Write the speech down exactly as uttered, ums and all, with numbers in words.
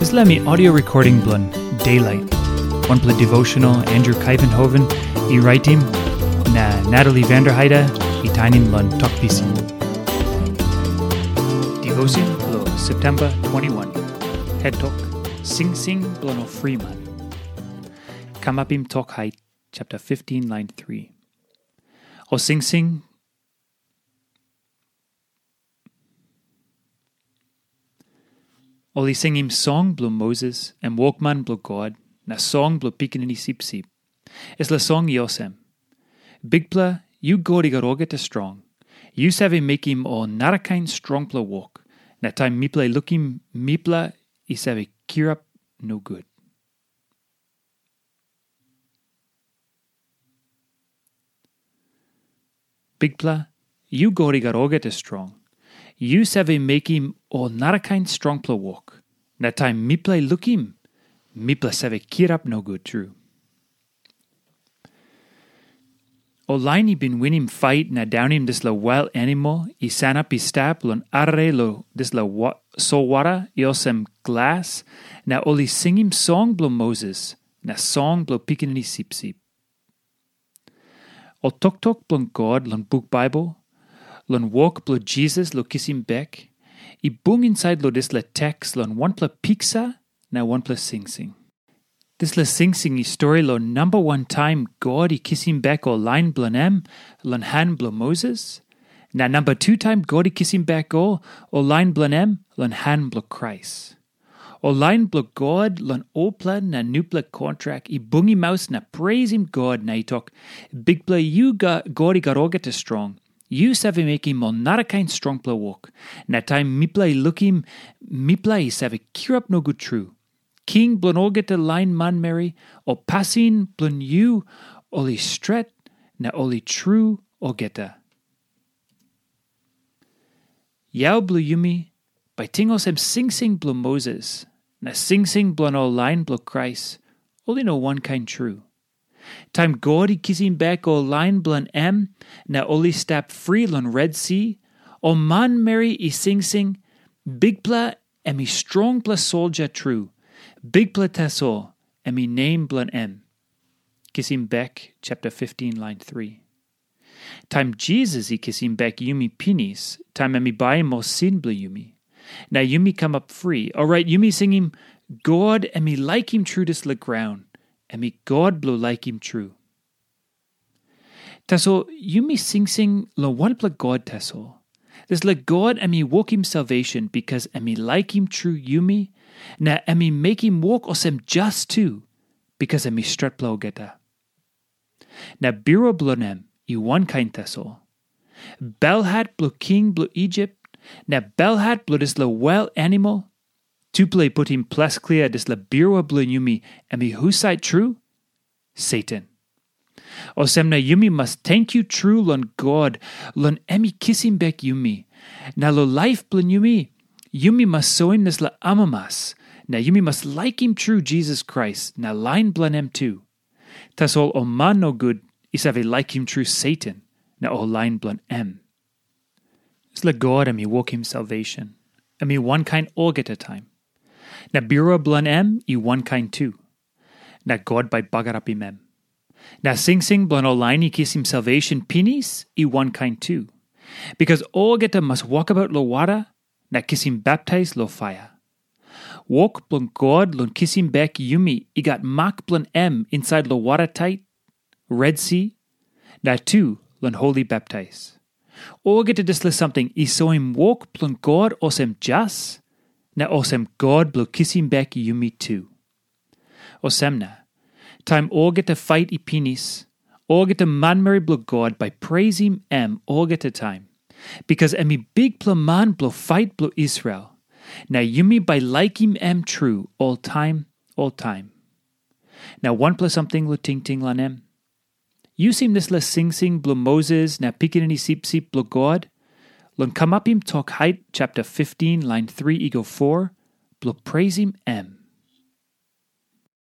Dispela mi audio recording bilong Daylight, wanpela devotional Andrew Kaivenhoven i raitim, na Natalie Vanderheide i tainim long Tok Pisin. Devotion bilong September twenty-one. Head Tok, Singsing bilong ol friman. Kamapim Tok Hait, chapter fifteen, line three. Ol singsing Ol i singim song bilong Moses, em wokman bilong God, na song bilong Pikinini Sipsip. Dispela song i olsem, Bikpela, yu God i gat olgeta strong. Yu save mekim ol narakain strongpela wok, na taim mipela i lukim, mipela i save kirap nogut. Bikpela, yu God i gat olgeta strong. Yu save mekim ol narakain strongpela wok, na taim mipela i lukim, mipela save kirap nogut tru. Ol lain i bin winim fait na daunim dispela wail animal i sanap i stap long arere long dispela solwara i olsem glas, na ol i singim song bilong Moses na song bilong Pikinini Sipsip. Ol toktok bilong God long buk Baibel, long wok bilong Jisas long kisim bek, i bung insait long dispela teks long wanpela piksa na wanpela singsing. Dispela singsing i stori long namba wan taim God i kisim bek ol lain bilong em long han bilong Moses, na namba tu taim God i kisim bek ol, ol lain bilong em long han bilong Krais. Ol lain bilong God long olpela na nupela kontrak i bungim maus na preisim God na i tok, Bikpela, yu God i gat olgeta strong. Yu save mekim ol narakain strongpela wok, na taim mipela i lukim, mipela i save kirap nogut tru. King bilong olgeta lain manmeri, ol pasin bilong yu ol i stret na ol i tru olgeta. Yau bilong yumi bai ting olsem singsing bilong Moses na singsing bilong ol lain bilong Krais, ol i no wankain tru. Taim God i kisim bek ol lain bilong em na ol i stap fri long Red Si, ol manmeri i singsing, Bikpela em i strongpela soldia tru, Bikpela tasol em i nem bilong em. Kisim bek chapter fifteen, line three. Taim Jisas i kisim bek yumi pinis, taim em i baim ol sin bilong yumi, na yumi kamap fri, orait yumi singim, God em i laikim tru dispela graun, em i God bilong laikim tru. Tasol yumi singsing long wanpela God tasol. Dispela God em i wokim salvation bikas em i laikim tru yumi, na em i mekim wok olsem jas tu, bikas em i stretpela olgeta. Na birua bilong em i wankain tasol. Belhat bilong king bilong Isip, na belhat bilong dispela wail animal, tupela i putim ples klia dispela birua bilong yumi em i husat tru? Satan. Olsem na yumi mas tenkyu tru long God, long em i kisim bek yumi. Na long laip bilong yumi, yumi mas soim dispela amamas, na yumi mas laikim tru Jisas Krais na lain bilong em tu. Tasol ol man nogut i save laikim tru Satan na ol lain bilong em. Dispela God em i wokim salvation, em i wankain olgeta taim. Na birua bilong em i wankain tu. Na God bai bagarapim em. Na singsing bilong ol lain i kisim salvation pinis i wankain tu. Bikas olgeta mas wokabaut long wara na kisim baptais long paia. Wok bilong God long kisim bek yumi i gat mak bilong em insait long wara tait, Red Si, na tu long holi baptais. Olgeta dispela samting i soim wok bilong God olsem jas, na olsem God bilong kisim bek yumi tu. Olsem na, taim olgeta pait i pinis, olgeta manmeri bilong God bai preisim em olgeta taim, bikas em i bikpela man bilong pait bilong Israel, na yumi bai laikim em tru oltaim oltaim. Na wanpela samting long tingting long em. Yu sing dispela singsing bilong Moses na Pikinini Sipsip bilong God, long Kamapim Tok Hait chapter fifteen, line three i go four, bilong preisim em.